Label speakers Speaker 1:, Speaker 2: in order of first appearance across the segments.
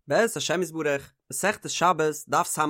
Speaker 1: בעזרת השם יתברך, מסכת שבת, דף ס"א,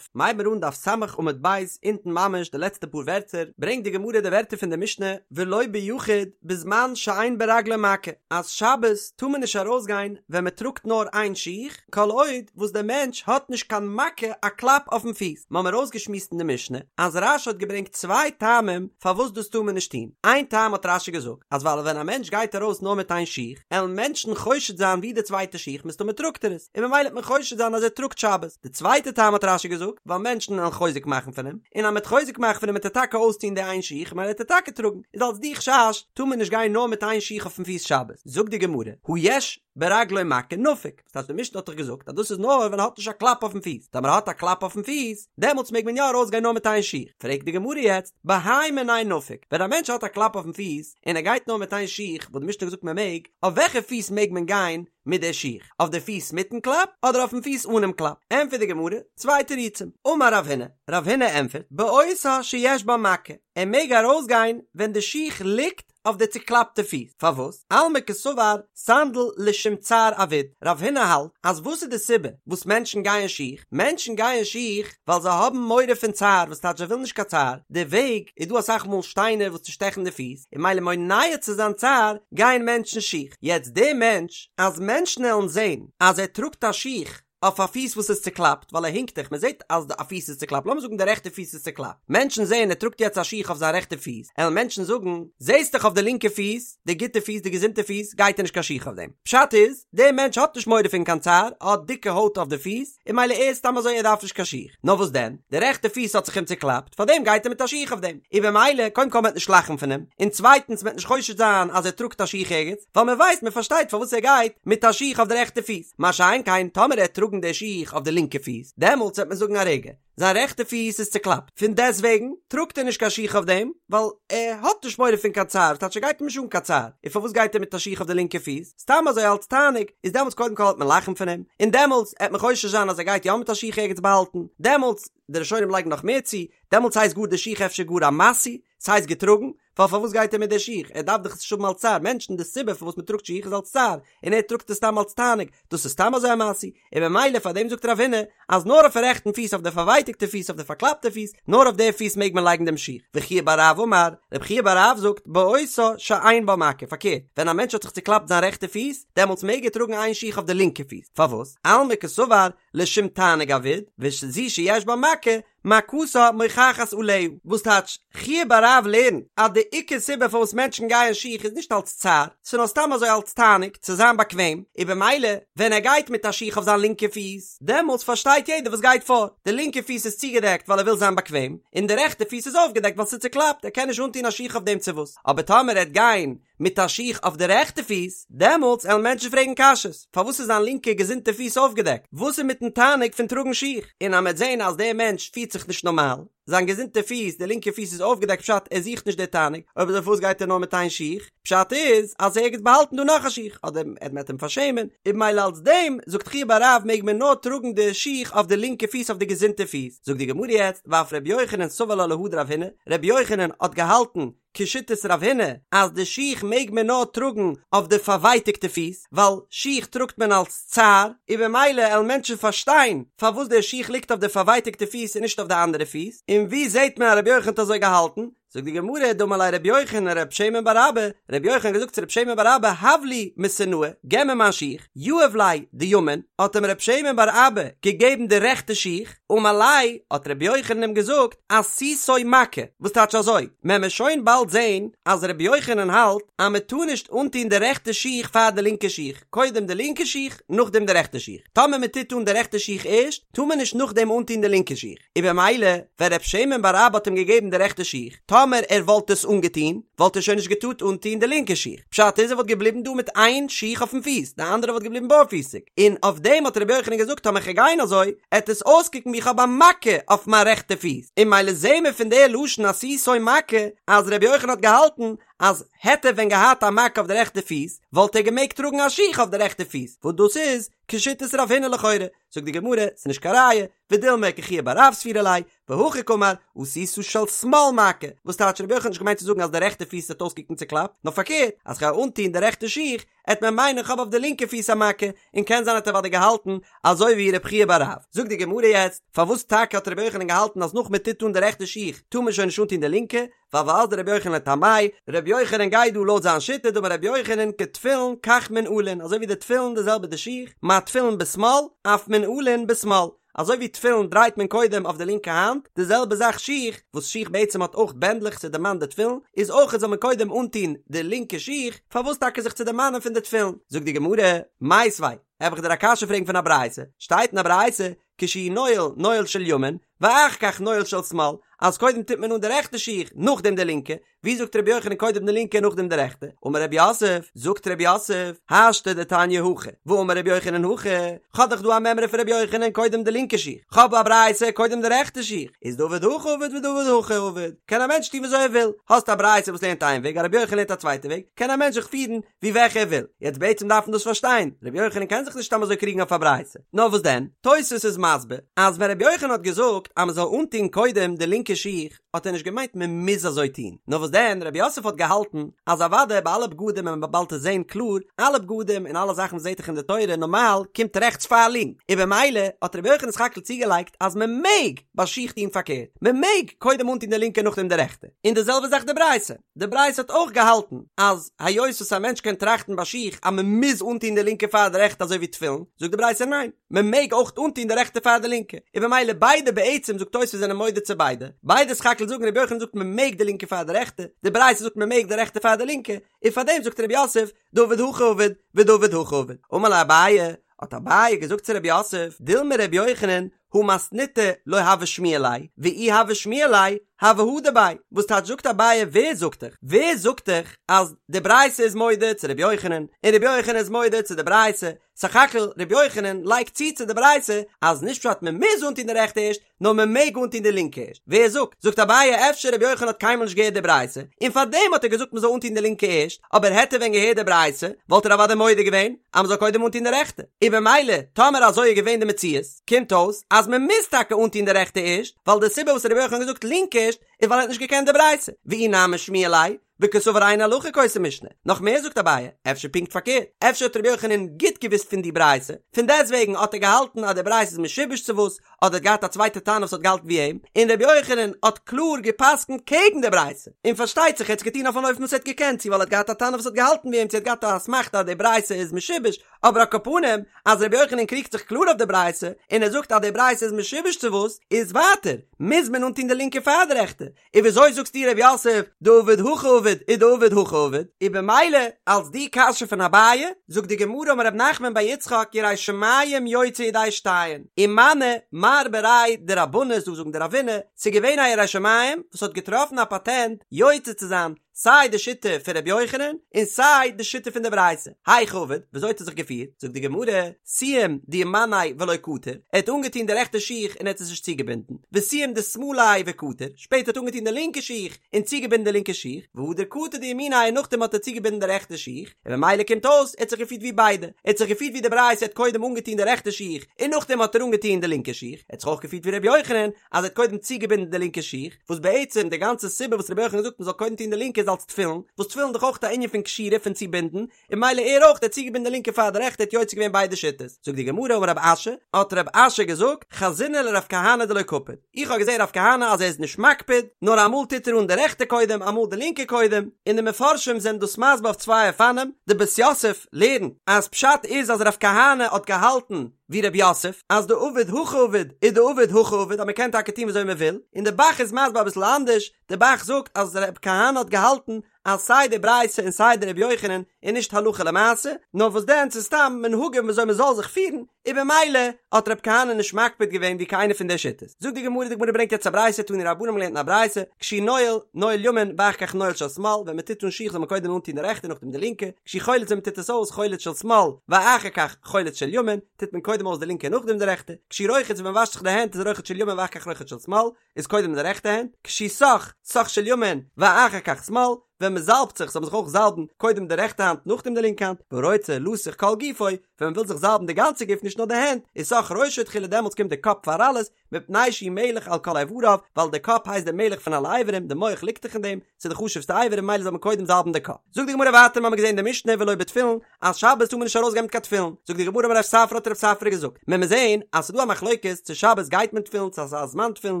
Speaker 1: מ'הייבן מיר אן דף ס' עמוד ב', אונטן ממש די לעצטע פאר ווערטער, ברענגט די גמרא די ווערטער פון די משנה, ולא ביחיד בזמן שאין ברגלו מכה, אז שבת טאר מען נישט ארויסגיין ווען מען טראגט נאר איין שיך, כל עוד וואס דער מענטש האט נישט קיין מכה א קלאפ אויפן פיס. מ'האמיר אויסגעשמועסט אין די משנה אז רש"י האט געברענגט צוויי טעמים פארוואס דאס טאר מען נישט טון, איין טעם האט רש"י געזאגט, אז ווייל ווען א מענטש גייט ארויס נאר מיט איין שיך, עלן מענטשן חושד זיין ווי די צווייטע שיך מסתמא טראגט ער עס, און ממילא וועט מען חושד זיין אז ער טראגט שבת. די צווייטע טעם האט רש"י געזאגט, ווייל מענטשן עלן חוזק מאכן פון אים, און אז מ'עט חוזק מאכן פון אים וועט ער טאקע אויסטון די איין שיך, ממילא וועט ער טאקע טראגן, איז אלס די חשש טאר מען נישט גיין נאר מיט איין שיך אויפן פיס שבת. זאגט די גמרא, הא יש ברגלו מכה נפיק, וואס טייטש די משנה האט דאך געזאגט אז דאס איז נאר ווען ער האט נישט א קלאפ אויפן פיס, טאמער ער האט א קלאפ אויפן פיס, דעמאלטס מעג מען יא ארויסגיין נאר מיט איין שיך, פרעגט די גמרא יעצט, בהאי מיניה נפיק, ווען א מענטש האט א קלאפ אויפן פיס, און ער גייט נאר מיט איין שיך, וואס די משנה האט געזאגט מען מעג, אויף וועלכע פיס מעג מען גיין מיט די שיך, אויף די פיס מיטן קלאפ, אדער אויפן פיס אנעם קלאפ? ענטפערט די גמרא, צוויי תירוצים, אמר רב הונא, רב הונא ענטפערט, באותה שיש בה מכה, ער מעג ארויסגיין ווען די שיך ליגט אויף די צוקלאפטע פיס, פארוואס? אלמא קסבר סנדל לשום צער עביד, רב הונא האלט אז וואס איז די סיבה וואס מענטשן גייען שיך? מענטשן גייען שיך ווייל זיי האבן מורא פון צער, וואס טייטש זיי ווילן נישט קיין צער, די וועג איז דא אסאך מאל שטיינער וואס צושטעכן די פיס, און ממילא מונע צו זיין צער גייען מענטשן שיך, יעצט די מענטש אז מענטשן עלן זען אז ער טראגט א שיך אויף א פיס וואס איז צוקלאפט, ווייל ער הינקט דאך, מען זעט אז א פיס איז צוקלאפט, לאמיר זאגן די רעכטע פיס איז צוקלאפט, מענטשן זעען ער טראגט יעצט א שיך אויף זיין רעכטע פיס, עלן מענטשן זאגן, זעסט דאך אויף די לינקע פיס, די גוטע פיס, די געזונטע פיס, גייט ער נישט קיין שיך אויף דעם. פשט איז, דער מענטש האט נישט מורא פון קיין צער, ער האט דיקע הויט אויף די פיס, און ממילא ער איז סתם אזוי ער דארף נישט קיין שיך. נאר וואס דען, די רעכטע פיס האט זיך אים צוקלאפט, פארדעם גייט ער מיט א שיך אויף דעם. און במילא, קודם כל מען וועט נישט לאכן פון אים, און צווייטנס מען וועט נישט חושד זיין אז ער טראגט א שיך ערגעץ, ווייל מען ווייסט מען פארשטייט פארוואס ער גייט מיט א שיך אויף די רעכטע פיס, מה שאין כן טאמער ער וועט טראגן די שיך אויף די לינקע פיס, דעמאלטס וועט מען זאגן א רגע, זיין רעכטע פיס איז צוקלאפט, פון דעסטוועגן טראגט ער נישט קיין שיך אויף דעם, ווייל ער האט נישט מורא פון קיין צער, ס'טייטש ס'גייט אים נישט אן קיין צער, און פארוואס גייט ער מיט א שיך אויף די לינקע פיס? סתם אזוי אלץ תענוג, איז דעמאלטס קודם כל וועט מען לאכן פון אים, און דעמאלטס עט מען חושש זיין אז ער גייט יא מיט א שיך ערגעץ באהאלטן, דעמאלטס, די ראשונים לייגן נאך מער צו, דעמאלטס הייסט גאר די שיך אפשר גאר א משוי, ס'הייסט געטראגן, ווייל פארוואס גייט ער מיט די שיך? ער דארף דאך עס נישט האבן אלס צער, מענטשן די סיבה פארוואס מען טראגט שיך איז אלס צער, און ער טראגט עס סתם אלס תענוג, דאס איז סתם אזוי א משוי, און במילא פאר דעם זאגט רב הונא אז נאר אויפן רעכטן פיס אויף די פארווייטיגטע פיס אויף די פארקלאפטע פיס, נאר אויף די פיס מעג מען לייגן דעם שיך, וחייא בר רב אמר, רב חייא בר רב זאגט, באותה שאין בה מכה, פארקערט, ווען א מענטש האט זיך צוקלאפט זיין רעכטע פיס, דעמאלטס מעג ער טראגן איין שיך אויף די לינקע פיס, פארוואס? אלמא קסבר לשום תענוג עביד, וזו שיש בה מכה, מכתה מוכחת עליה, וואס טייטש, חייא בר רב לערנט אז די עיקר סיבה פארוואס מענטשן גייען שיך איז נישט אלס צער, ס'איז נאר סתם אזוי אלס תענוג, צו זיין באקוועם, און במילא ווען ער גייט מיט א שיך אויף זיין לינקע פיס, דעמאלטס פארשטייט יעדער וואס גייט פאר, די לינקע פיס איז צוגעדעקט ווייל ער וויל זיין באקוועם, און די רעכטע פיס איז אויפגעדעקט ווייל ס'איז צוקלאפט, ער קען נישט אנטון א שיך אויף דעם צו וואס, אבער טאמער ער וועט גיין מיט א שיך אויף די רעכטע פיס, דעמאלטס עלן מענטשן פרעגן קשיות, פארוואס איז זיין לינקע געזונטע פיס אויפגעדעקט? וואס איז מיטן תענוג פון טראגן שיך? און אז מ'עט זען אז דער מענטש פירט זיך נישט נארמאל, זיין געזונטע פיס, די לינקע פיס איז אויפגעדעקט פשט ער זוכט נישט די תענוג, אויב אזוי פארוואס גייט ער נאר מיט איין שיך? פשט איז אז ער ערגעץ באהאלטן דא נאך א שיך, אדער ער מ'עט אים פארשעמען, און במילא אלס דעם זאגט חייא בר רב מעג מען נאר טראגן די שיך אויף די לינקע פיס אויף די געזונטע פיס, זאגט די גמרא יעצט ואף ר' יוחנן סבר לה להא דרב הונא, ר' יוחנן האט געהאלטן כשיטת רב הונא אז די שיך מעג מען נאר טראגן אויף די פארווייטיגטע פיס, ווייל שיך טראגט מען אלס צער, און במילא עלן מענטשן פארשטיין פארוואס די שיך ליגט אויף די פארווייטיגטע פיס און נישט אויף די אנדערע פיס, און ווי זעט מען אז רבי יוחנן האט אזוי געהאלטן? זאגט די גמרא, דאמר ליה רבי יוחנן לרב שמן בר אבא, רבי יוחנן האט געזאגט צו רב שמן בר אבא, הב לי מתנאי, געב מיר מיין שיך, יהב ליה דימין, האט אים רב שמן בר אבא געגעבן די רעכטע שיך, אמר ליה, האט רבי יוחנן אים געזאגט, עשיתו מכה, וואס טייטש אזוי? מען וועט שוין באלד זען אז רבי יוחנן האלט אז מען טאר נישט אנטון די רעכטע שיך פאר די לינקע שיך, קודם די לינקע שיך נאכדעם די רעכטע שיך, טאמער מען טוט אן די רעכטע שיך ערשט, טאר מען נישט נאכדעם אנטון די לינקע שיך, און במילא ווען רב שמן בר אבא האט אים געגעבן די רעכטע שיך, טאמער ער וואלט עס אנגעטון, וואלט ער שוין נישט געטארט אנטון די לינקע שיך, פשט איז ער וואלט געבליבן דא מיט איין שיך אויפן פיס, די אנדערע וואלט געבליבן בארפיסיג, און אויף דעם האט רבי יוחנן געזאגט טאמער כ'גיי גיין אזוי, עט עס אויסקוקן ווי כ'האב א מכה אויף מיין רעכטע פיס, און מילא זעהן מיר פון די לשון עשיתו מכה אז רבי יוחנן האט געהאלטן אז העט ער ווען געהאט א מכה אויף די רעכטע פיס וואלט ער געמעגט טראגן א שיך אויף די רעכטע פיס, וואס דאס איז כשיטת רב הונא לכאורה, זאגט די גמרא, ס'איז נישט קיין ראיה, ודילמא כחייא בר רב סבירא ליה, והכי קאמר, עשית של שמאל מכה, וואס טייטש רבי יוחנן האט נישט געמיינט צו זאגן אז די רעכטע פיס וועט אויסקוקן צוקלאפט, נאר פארקערט, אז כ'גיי אנטוהן די רעכטע שיך, עט מען מיינען כ'האב אויף די לינקע פיס א מכה, און קען זיין האט ער אוודאי געהאלטן אזוי ווי רב חייא בר רב. זאגט די גמרא יעצט, פארוואס טאקע האט רבי יוחנן געהאלטן אז נאך מען טוט אן די רעכטע שיך טאר מען שוין נישט אנטון די לינקע, ווייל ואזדא רבי יוחנן לטעמיה, רבי יוחנן גייט דא לויט זיין שיטה דאמר רבי יוחנן כתפילין כך מנעלין אזוי ווי די תפילין די זעלבע די שיך, מה תפילין בשמאל אף מנעלין בשמאל, אזוי ווי תפילין דרייט מען קודם אויף די לינקע האנט, די זעלבע זאך שיך, וואס שיך בעצם האט אויך בענדלעך צו דערמאנען די תפילין, איז אויך זאל מען קודם אנטון די לינקע שיך, פארוואס טאקע זיך צו דערמאנען פון די תפילין? זאגט די גמרא, מיתיבי, וועל איך דיר א קשיא פרעגן פון א ברייתא, שטייט אין א ברייתא, כשהוא נועל, נועל של ימין, ואחר כך נועל של שמאל, אז קודם טוט מען אן די רעכטע שיך, נאכדעם די לינקע, ווי זאגט רבי יוחנן קודם די לינקע נאכדעם די רעכטע? אמר רב יוסף, זאגט רב יוסף, השתא דתניא הכי, ואמר רבי יוחנן הכי, כ'האב דאך דא א מימרא פון רבי יוחנן קודם די לינקע שיך, כ'האב א ברייתא קודם די רעכטע שיך, איז דעביד הכי עביד ודעביד הכי עביד, קען א מענטש טון וויאזוי ער וויל, האסט א ברייתא וואס לערנט איין וועג, א רבי יוחנן לערנט א צווייטע וועג, קען א מענטש זיך פירן ווי וועלכע ער וויל, יעצט בעצם דארף מען דאס פארשטיין, רבי יוחנן קען זיך נישט סתם אזוי קריגן אויף א ברייתא, נאר וואס דען, תוספות איז מסביר אז ווען רבי יוחנן האט געזאגט אז מען זאל אנטון קודם די לינקע שיך, האט ער נישט געמיינט מען מוז אזוי טון, נאר וואס דען רב יוסף האט געהאלטן אז אוודאי ביי אלע בגדים וועט מען באלד עס זעהן קלאר, אלע בגדים און אלע זאכן וואס זעהט זיך אין די תורה נארמאל קומט רעכטס פאר לינק, און במילא האט רבי יוחנן סך הכל צוגעלייגט אז מען מעג ביי שיך טון פארקערט, מען מעג קודם אנטון די לינקע נאכדעם די רעכטע, און די זעלבע זאך די ברייתא, די ברייתא האט אויך געהאלטן אז היות וואס א מענטש קען טראכטן ביי שיך אז מען מוז אנטון די לינקע פאר די רעכטע אזוי ווי תפילין, זאגט די ברייתא ניין, מען מעג אויך אנטון די רעכטע פאר די לינקע, און במילא ביידע בעצם זאגט תוספות זענען מודה צו ביידע, ביידע סך הכל זאגן רבי יוחנן זאגט מען מעג די לינקע פאר די רעכטע, די ברייתא זאגט מען מעג די רעכטע פאר די לינקע, און פארדעם זאגט רב יוסף דעביד הכי עביד ודעביד הכי עביד, אמר ליה אביי, האט אביי געזאגט צו רב יוסף, דילמא רבי יוחנן הא מתניתא לא הוה שמיע ליה, ואי הוה שמיע ליה, הוה הדר ביה, וואס טייטש זאגט אביי ווער זאגט דיך, ווער זאגט דיך אז די ברייתא איז מודה צו רבי יוחנן, און רבי יוחנן איז מודה צו די ברייתא, סך הכל רבי יוחנן לייגט צו צו די ברייתא אז נישט פשט מען מוז אנטון די רעכטע ערשט, נאר מען מעג אנטון די לינקע ערשט, ווער זאגט? זאגט אביי אפשר רבי יוחנן האט קיינמאל נישט געהערט די ברייתא, און פארדעם האט ער געזאגט מען זאל אנטון די לינקע ערשט, אבער העט ער ווען געהערט די ברייתא וואלט ער אוודאי מודה געווען אז מען זאל קודם אנטון די רעכטע, און במילא טאמער אזוי איז געווען די מציאות, קומט אויס אז מען מוז טאקע אנטון די רעכטע ערשט, ווייל די סיבה וואס רבי יוחנן האט געזאגט לינקע ערשט איז ווייל ער האט נישט געקענט די ברייתא, ואי נמי שמיע ליה, וקסבר אין הלכה כאותה משנה, נאך מער זאגט אביי, אפשר פונקט פארקערט, אפשר האט רבי יוחנן גוט געוואוסט פון די ברייתא, פון דעסטוועגן האט ער געהאלטן אז די ברייתא איז משובש צו וואס, אדער האט געהאט א צווייטע תנא וואס האט געהאלטן ווי אים, און רבי יוחנן האט קלאר גע'פסק'נט קעגן די ברייתא, און פארשטייט זיך ער האט עס געטון אויף אן אופן וואס ער האט געקענט, צו ווייל ער האט געהאט א תנא וואס האט געהאלטן ווי אים, צו ער האט געהאט א אסמכתא אז די ברייתא איז משובש, אבער על כל פנים אז רבי יוחנן קריגט זיך קלאר אויף די ברייתא, און ער זאגט אז די ברייתא איז משובש צו וואס, איז ווייטער, מוז מען אנטון די לינקע פאר די רעכטע, און וויאזוי זאגסטו ר' יוסף דעביד הכי עביד ודעביד הכי עביד? און במילא אלס די קשיא פון אביי, זאגט די גמרא אמר ר' נחמן בר יצחק ירא שמים יוצא ידי שתיהן, ומנו מר בריה דרבנא ס'דא זאגן דרבינא, ס'איז געווען א ירא שמים וואס האט געטראפן א פאטענט יוצא צו זיין סיי די שיטה פון ר' יוחנן און סיי די שיטה פון די ברייתא, היכי עביד, וויאזוי האט ער זיך געפירט? זאגט די גמרא, סיים דימיניה ולא קטר, ער האט אנגעטון די רעכטע שיך און ער האט עס נישט צוגעבינדן, וסיים דשמאליה וקטר, שפעטער האט אנגעטון די לינקע שיך און צוגעבינדן די לינקע שיך, והדר קטר דימיניה און נאכדעם האט ער צוגעבינדן די רעכטע שיך, און ממילא קומט אויס ער האט זיך געפירט ווי ביידע, ער האט זיך געפירט ווי די ברייתא ער האט קודם אנגעטון די רעכטע שיך און נאכדעם האט ער אנגעטון די לינקע שיך, ער האט זיך אויך געפירט ווי ר' יוחנן אז ער האט קודם צוגעבינדן די לינקע שיך, וואס בעצם די גאנצע סיבה וואס ר' יוחנן זאגט מען זאל קודם טון די לינקע איז אלס תפילין, וואס תפילין איז דאך אויך א ענין פון קשירה פון צובינדן, און ממילא ער אויך האט צוגעבינדן די לינקע פאר די רעכטע האט יוצא געווען ביידע שיטות, זאגט די גמרא אמר רב אשי, האט רב אשי געזאגט, חזינא לרב כהנא דלא קפיד, איך האב געזען רב כהנא אז ער איז נישט מקפיד, נאר אמאל טוט ער אן די רעכטע קודם אמאל די לינקע קודם, און די מפרשים זענען דאס מסביר אויף צוויי אופנים, די בית יוסף לערנט אז פשט איז אז רב כהנא האט געהאלטן ווי רב יוסף אז דעביד הכי עביד ודעביד הכי עביד אז מען קען טאקע טון וויאזוי מען וויל, און די ב"ח איז מסביר אביסל אנדערש, די ב"ח זאגט אז רב כהנא האט געהאלטן אז סיי די ברייתא און סיי די רבי יוחנן איז נישט הלכה למעשה, נאר וואס דען ס'איז סתם מנהגים וויאזוי מ'זאל זיך פירן, און במילא האט רב כהנא נישט מקפיד געווען ווי קיינע פון די שיטות. זאגט די גמרא, די גמרא ברענגט יעצט א ברייתא, תנו רבנן מ'האט געלערנט אין א ברייתא, כשהוא נועל, נועל ימין ואחר כך נועל של שמאל, ווען מ'טוט אן שיך זאל מען קודם אנטון די רעכטע נאכדעם די לינקע, כשהוא חולץ ווען מ'טוט עס אויס, חולץ של שמאל, ואחר כך חולץ של ימין, טוט מען קודם אויס די לינקע נאכדעם די רעכטע, כשהוא רוחץ ווען מ'וואשט זיך די הענט איז רוחץ של ימין ואחר כך רוחץ של שמאל, איז קודם די רעכטע הענט, כשהוא סך, סך של ימין, ואחר כך שמאל, ווען מען זאלבט זיך זאל מען זיך אויך זאלבן קודם די רעכטע האנט נאכדעם די לינקע האנט, והרוצה לסוך כל גופו, ווען מען וויל זיך זאלבן די גאנצע גוף נישט נאר די הענט, איז סך ראשו תחילה דעמאלטס קומט די קאפ פאר אלעס, מפני שהוא מלך על כל איבריו, ווייל די קאפ הייסט די מלך פון אלע אברים, די מח ליגט דאך אין דעם, ס'איז די חשוב'סטע אבר און ממילא זאל מען קודם זאלבן די קאפ. זאגט די גמרא ווייטער מ'האמיר געזען אין די משנה ולא בתפילין, אז שבת טאר מען נישט ארויסגיין מיט קיין תפילין, זאגט די גמרא אמר רב ספרא האט רב ספרא געזאגט, מען מוז זען אז ס'איז דא א מחלוקת צו שבת גייט מען תפילין צו ס'איז א זמן תפילין,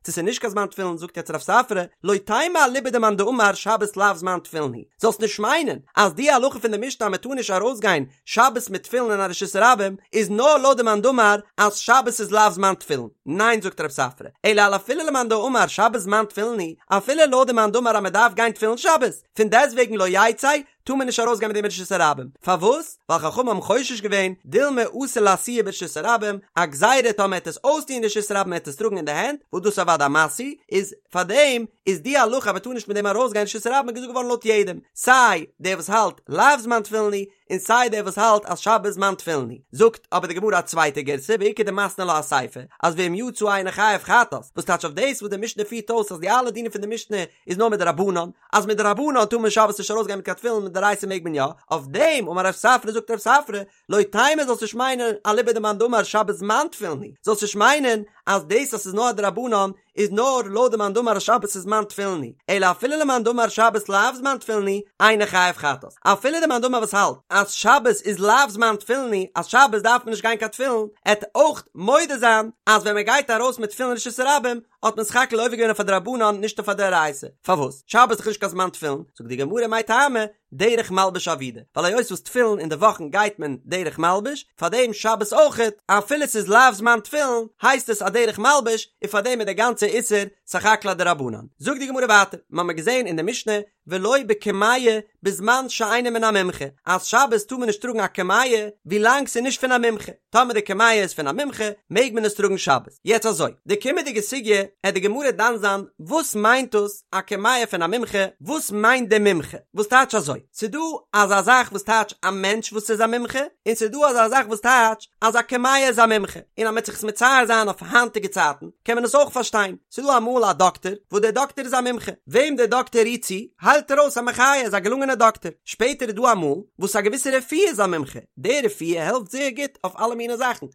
Speaker 1: צו ס'איז נישט קיין זמן תפילין, זאגט יעצט רב ספרא, לא תימא אליבא דמאן דאמר שבת לאו זמן תפילין הוא, זאלסט נישט מיינען אז די הלכה פון די משנה אז מען טאר נישט ארויסגיין שבת מיט תפילין אין א רשות הרבים איז נאר לויט די מאן דאמר אז שבת איז לאו זמן תפילין, ניין זאגט רב ספרא, אלא אפילו למאן דאמר שבת זמן תפילין הוא, אפילו לויט די מאן דאמר אז מען דארף גיין תפילין שבת, פון דעסטוועגן לא יצא, טאר מען נישט ארויסגיין מיט דעם ברשות הרבים, פארוואס? ווייל חכמים האבן חושש געווען, דילמא אתי לאתויי ברשות הרבים, א גזירה טאמער עט עס אויסטוהן אין רשות הרבים עט עס טראגן אין די הענט, וואס דאס איז אוודאי א משוי, איז פארדעם איז די הלכה אז מען טאר נישט מיט דעם ארויסגיין רשות הרבים געזאגט געווארן לויט יעדעם, סיי דער וואס האלט לאו זמן תפילין הוא, און סיי דער וואס האלט אז שבת זמן תפילין הוא. זאגט אבער די גמרא א צווייטע גירסא ואיכא דמתני לה אסיפא, אז ואם יצא אינו חייב חטאת, וואס טייטש אויף דאס וואס די משנה פירט אויס אז די אלע דינים פון די משנה איז נאר מדרבנן, אז מדרבנן טאר מען שבת נישט ארויסגיין מיט קיין תפילין מדאורייתא מעג מען יא, אויף דעם אמר רב ספרא זאגט רב ספרא, לא תימא זאלסט נישט מיינען אליבא דמאן דאמר שבת זמן תפילין הוא, זאלסט נישט מיינען אז דאס אז ס'איז נאר א דרבנן איז נאר לויט די מאן דאמר אז שבת איז זמן תפילין הוא, אלא אפילו למאן דאמר שבת לאו זמן תפילין הוא, אינו חייב חטאת. אפילו די מאן דאמר וואס האלט אז שבת איז לאו זמן תפילין הוא, אז שבת דארף מען נישט גיין קיין תפילין, עט אויך מודה זיין אז ווען מען גייט ארויס מיט תפילין רשות הרבים האט מען סך הכל עובר געווען אויף א דרבנן נישט אויף א דאורייתא. פארוואס? שבת איז דאך נישט קיין זמן תפילין, זאגט די גמרא מאי טעמא, דרך מלבוש עבידי, ווייל היות וואס תפילין אין די וואכן גייט מען דרך מלבוש, פארדעם שבת אויכעט, אפילו ס'איז לאו זמן תפילין, הייסט עס א דרך מלבוש, און פארדעם איז דער גאנצער איסור סך הכל א דרבנן. זאגט די גמרא ווייטער, מ'האמיר געזען אין די משנה, ולא בקמיע בזמן שאינו מן המומחה, אז שבת טאר מען נישט טראגן א קמיע ווילאנג ס'איז נישט פון א מומחה, טאמער די קמיע איז פון א מומחה מעג מען עס טראגן שבת. יעצט אזוי, די קומענדיגע סוגיא עט די גמרא דן זיין וואס מיינט דאס א קמיע פון א מומחה, וואס מיינט די מומחה? וואס טייטש אזוי? ס'דא אזא זאך וואס טייטש א מענטש וואס איז א מומחה, און ס'דא אזא זאך וואס טייטש אז א קמיע איז א מומחה, און אז מ'עט זיך עס מצייר זיין אויף היינטיגע צייטן קען מען עס אויך פארשטיין, ס'דא אמאל א דאקטער וואס דער דאקטער איז א מומחה, וועם דער דאקטער רירט צו היילט ער אויס א מחיה, איז א געלונגענער דאקטער, שפעטער איז דא אמאל וואס א געוויסע רפואה איז א מומחה, די רפואה העלפט זייער גוט אויף אלע מיני זאכן,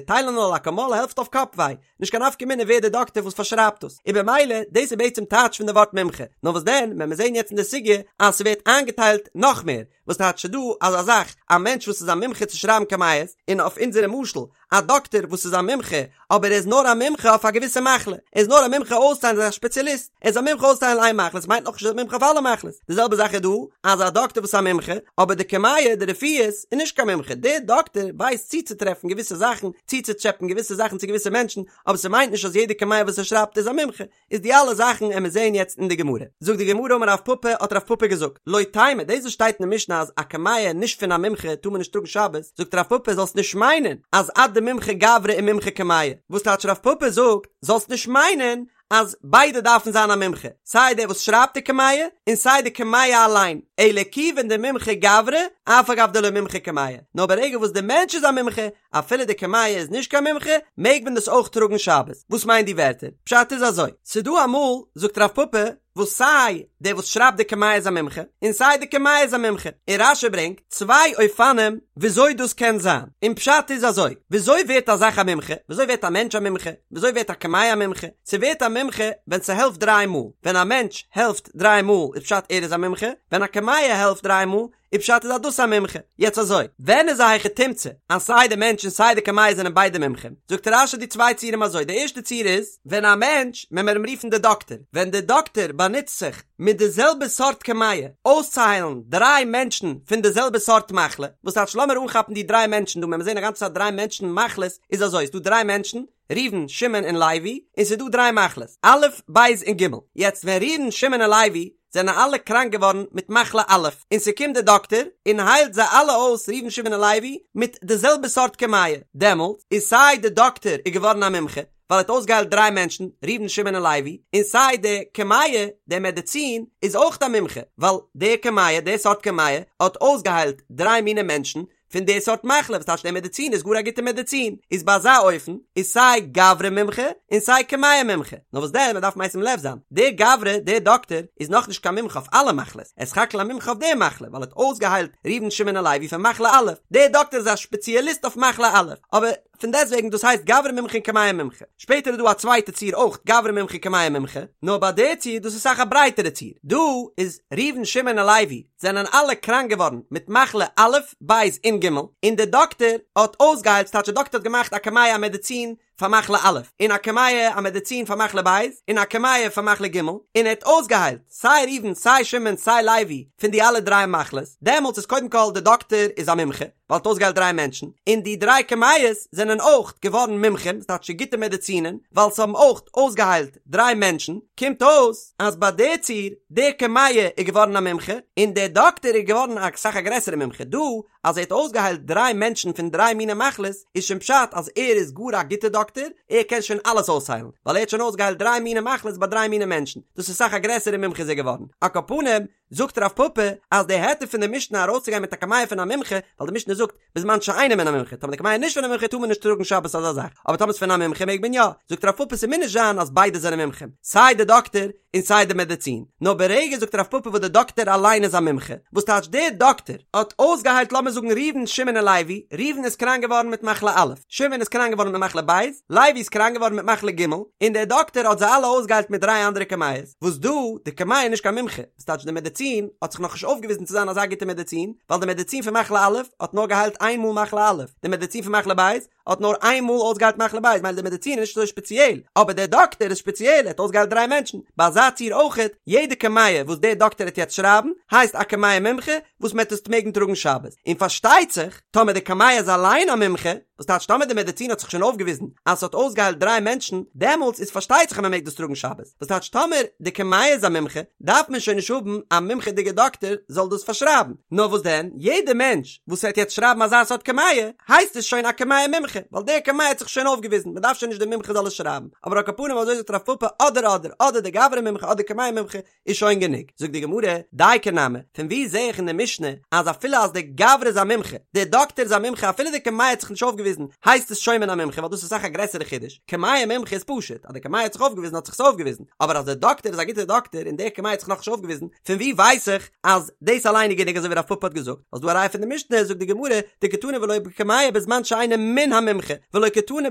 Speaker 1: טיילענאל אקאמאל העלפט אויף קאפ וויי, נישט קיין נפקא מינה ווער דער דאקטער וואס פארשרייבט דאס, און במילא דאס איז בעצם טייטש פון די ווארט מומחה, נאר וואס דען ווען מיר זעהן יעצט אין די סוגיא אז ס'ווערט איינגעטיילט נאך מער, וואס טייטש ס'דא אזא זאך א מענטש וואס איז א מומחה צו שרייבן קמיעות, און אויף אונזערע משל א דאקטער וואס איז א מומחה אבער ער איז נאר א מומחה אויף א געוויסע מחלה, ער איז נאר א מומחה אויסצוהיילן ער איז א שפעציאליסט, ער איז א מומחה אויסצוהיילן איין מחלה, עס מיינט נאכנישט ער איז א מומחה אויף אלע מחלות, די זעלבע זאך איז דא אז א דאקטער וואס איז א מומחה אבער די קמיע די רפואות איז נישט קיין מומחה, דער דאקטער ווייסט צוצוטרעפן געוויסע זאכן, צוצוטשעפען געוויסע זאכן צו געוויסע מענטשן, אבער ס'מיינט נישט אז יעדע קמיע וואס ער שרייבט איז א מומחה, איז די אלע זאכן עמיר זעהן יעצט אין די גמרא. זאגט די גמרא אמר רב פפא האט רב פפא געזאגט, לא תימא דאס וואס שטייט אין די משנה אז א קמיע נישט פון א מומחה טאר מען נישט טראגן שבת, זאגט רב פפא זאלסט נישט מיינען אז עד דמומחה גברא ומומחה קמיע, וואס טייטש רב פפא זאגט זאלסט נישט מיינען אז ביידע דארפן זיין א מומחה, סיי דער וואס שרייבט די קמיע און סיי די קמיע אליין, אלא כיוון דמומחה גברא אף על גב דלא מומחה קמיע, נאר ברגע וואס די מענטש איז א מומחה, אפילו די קמיע איז נישט קיין מומחה, מעג מען דאס אויך טראגן שבת. וואס מיינט די ווערטער? פשט איז אזוי, ס'דא אמאל, זאגט רב פפא, וואס סיי דער וואס שרייבט די קמיע איז א מומחה, און סיי די קמיע איז א מומחה, און רש"י ברענגט צוויי אופנים וויאזוי דאס קען זיין, און פשט איז אזוי, וויאזוי ווערט א זאך א מומחה? וויאזוי ווערט א מענטש א מומחה? וויאזוי ווערט א קמיע א מומחה? ס'ווערט א מומחה ווען ס'העלפט דריי מאל, ווען א מענטש העלפט דריי מאל איז פשט ער איז א מומחה, ווען א קמיע העלפט דריי מאל איז פשט איז אז דאס א מומחה. יעצט אזוי, ווען איז א היכי תמצא אז סיי די מענטש און סיי די קמיע זענען ביידע מומחים? זאגט רש"י די צוויי ציורים אזוי, די ערשטע ציור איז, ווען א מענטש, ווען מיר אים רופן די דאקטער, ווען די דאקטער באנוצט זיך מיט די זעלבע סארט קמיע אויסצוהיילן דריי מענטשן פון די זעלבע סארט מחלה, וואס טייטש לאמיר אנכאפן די דריי מענטשן דא, ווען מיר זעהן א גאנצע צייט דריי מענטשן מחלות, איז אזוי, ס'דא דריי מענטשן, ראובן, שמעון און לוי, און ס'איז דא דריי מחלות, א', ב' און ג'. יעצט ווען ראובן, שמעון און לוי זענען אלע קראנק געווארן מיט מחלה א', און ס'קומט דער דאקטער און היילט זיי אלע אויס ראובן, שמעון און לוי מיט די זעלבע סארט קמיע, דעמאלט איז סיי די דאקטער איז געווארן א מומחה, ווייל ער האט אויסגעהיילט דריי מענטשן, ראובן, שמעון און לוי, און סיי די קמיע, די מעדעצין, איז אויך א מומחה, ווייל די קמיע, די סארט קמיע, האט אויסגעהיילט דריי מיני מענטשן, פון די סארט מחלה, וואס טייטש די מעדעצין איז גאר א גוטע מעדעצין, איז ביי אזא אופן איז סיי גברא מומחה און סיי קמיע מומחה, נאר וואס דען מען דארף משים לב זיין, דער גברא, דער דאקטער, איז נאכנישט קיין מומחה אויף אלע מחלות, ער איז סך הכל א מומחה אויף די מחלה, ווייל ער האט אויסגעהיילט ראובן שמעון און לוי פון מחלה א', דער דאקטער איז א שפעציעליסט אויף מחלה א', אבער פון דעסטוועגן דאס הייסט גברא מומחה און קמיע מומחה. שפעטער איז דא א צווייטע ציור אויך גברא מומחה און קמיע מומחה, נאר ביי די ציור דאס איז אסאך א ברייטערע ציור, דא איז ראובן שמעון און לוי זענען אלע קראנק געווארן מיט מחלה א', ב' און ג', און דער דאקטער האט אויסגעהיילט, ס'טייטש דער דאקטער האט געמאכט א קמיע א מעדעצין פאר מחלה א', און א קמיע א מעדעצין פאר מחלה ב', און א קמיע פאר מחלה ג', און ער האט אויסגעהיילט סיי ראובן סיי שמעון סיי לוי פון די אלע דריי מחלות, דעמאלטס איז קודם כל דער דאקטער איז א מומחה, ווייל ער האט אויסגעהיילט דריי מענטשן, און די דריי קמיעות זענען אויך געווארן מומחים, ס'טייטש גוטע מעדעצינען, ווייל ס'האבן אויך אויסגעהיילט דריי מענטשן, קומט אויס אז ביי די ציור, די קמיע איז געווארן א מומחה, און דער דאקטער איז געווארן א סאך א גרעסערע מומחה, דא אז ער האט אויסגעהיילט דריי מענטשן פון דריי מיני מחלות, איז שוין פשט אז ער איז גאר א גוטע דאקטער, ער קען שוין אלעס אויסהיילן, ווייל ער האט שוין אויסגעהיילט דריי מיני מחלות ביי דריי מיני מענטשן, דאס איז סאך א גרעסערע מומחה איז ער געווארן, על כל פנים, זאגט רב פפא אז די היתר פון די משנה ארויסצוגיין מיט א קמיע פון א מומחה, ווייל די משנה זאגט בזמן שאינו מן המומחה, טאמער די קמיע איז נישט פון א מומחה טאר מען נישט טראגן שבת אזא זאך, אבער טאמער ס'איז פון א מומחה מעג מען יא, זאגט רב פפא ס'מוז נישט זיין אז ביידע זענען מומחים, סיי די דאקטער און סיי די מעדעצין, נאר ברגע זאגט רב פפא וואס די דאקטער אליין איז א מומחה, וואס טייטש דער דאקטער האט אויסגעהיילט לאמיר זאגן ראובן שמעון און לוי, ראובן איז קראנק געווארן מיט מחלה א', שמעון איז קראנק געווארן מיט מחלה ב', לוי איז קראנק געווארן מיט מחלה ג', און דער דאקטער האט זיי אלע אויסגעהיילט מיט דריי אנדערע קמיעות, וואס דא, די קמיע איז נישט קיין מומחה, וואס טייטש די מעדעצין האט זיך נאכנישט אויפגעוויזן צו זיין אזא גוטע מעדעצין, ווייל די מעדעצין פון מחלה א' האט נאר געהיילט איין מאל מחלה א', די מעדעצין פון מחלה ב' האט נאר איין מאל אויסגעהיילט מחלה ב', מילא די מעדעצין איז נישט אזוי שפעציעל, אבער דער דאקטער איז שפעציעל, ער האט אויסגעהיילט דריי מענטשן, ביי אזא ציור אויכעט, יעדע קמיע וואס דער דאקטער העט יעצט שרייבן, הייסט א קמיע מומחה, וואס מען העט עס מעגן טראגן שבת, און פארשטייט זיך, טאמער די קמיע איז אליין א מומחה, וואס טייטש טאמער די מעדעצין האט זיך שוין אויפגעוויזן אז ס'האט אויסגעהיילט דריי מענטשן, דעמאלטס איז פארשטייט זיך אז מ'מעג דאס טראגן שבת, וואס טייטש טאמער די קמיע איז א מומחה, דארף מען שוין נישט האבן א מומחה'דיגע דאקטער זאל דאס פארשרייבן, נאר וואס דען, יעדע מענטש וואס וועט יעצט שרייבן אזא סארט קמיע, הייסט עס שוין א קמיע מומחה, ווייל דער קמיע האט זיך שוין אויפגעוויזן, מ'דארף שוין נישט די מומחה זאל עס שרייבן, אבער על כל פנים אזוי זאגט רב פפא אדער אדער, אדער די גברא מומחה אדער קמיע מומחה, איז שוין גענוג. זאגט די גמרא, דייקא נמי, פון וואו זעה איך אין די משנה אז אפילו אז די גברא איז א מומחה, די דאקטער איז א מומחה אפילו די קמיע האט זיך נישט אויפגעוויזן, הייסט עס שוין מן המומחה ווייל דאס איז אסאך א גרעסערע חידוש, קמיע מומחה איז פשוט, אז די קמיע האט זיך אויפגעוויזן האט זיך עס אויפגעוויזן, אבער אז די דאקטער איז א גוטער דאקטער און די קמיע האט זיך נאכנישט אויפגעוויזן, פון וואו ווייס איך אז דאס אליין איז גענוג אזוי ווי רב פפא האט געזאגט? האסט דא א ראיה פון די משנה, זאגט די גמרא, דקתני ולא בקמיע בזמן שאינו מן המומחה, ולא קתני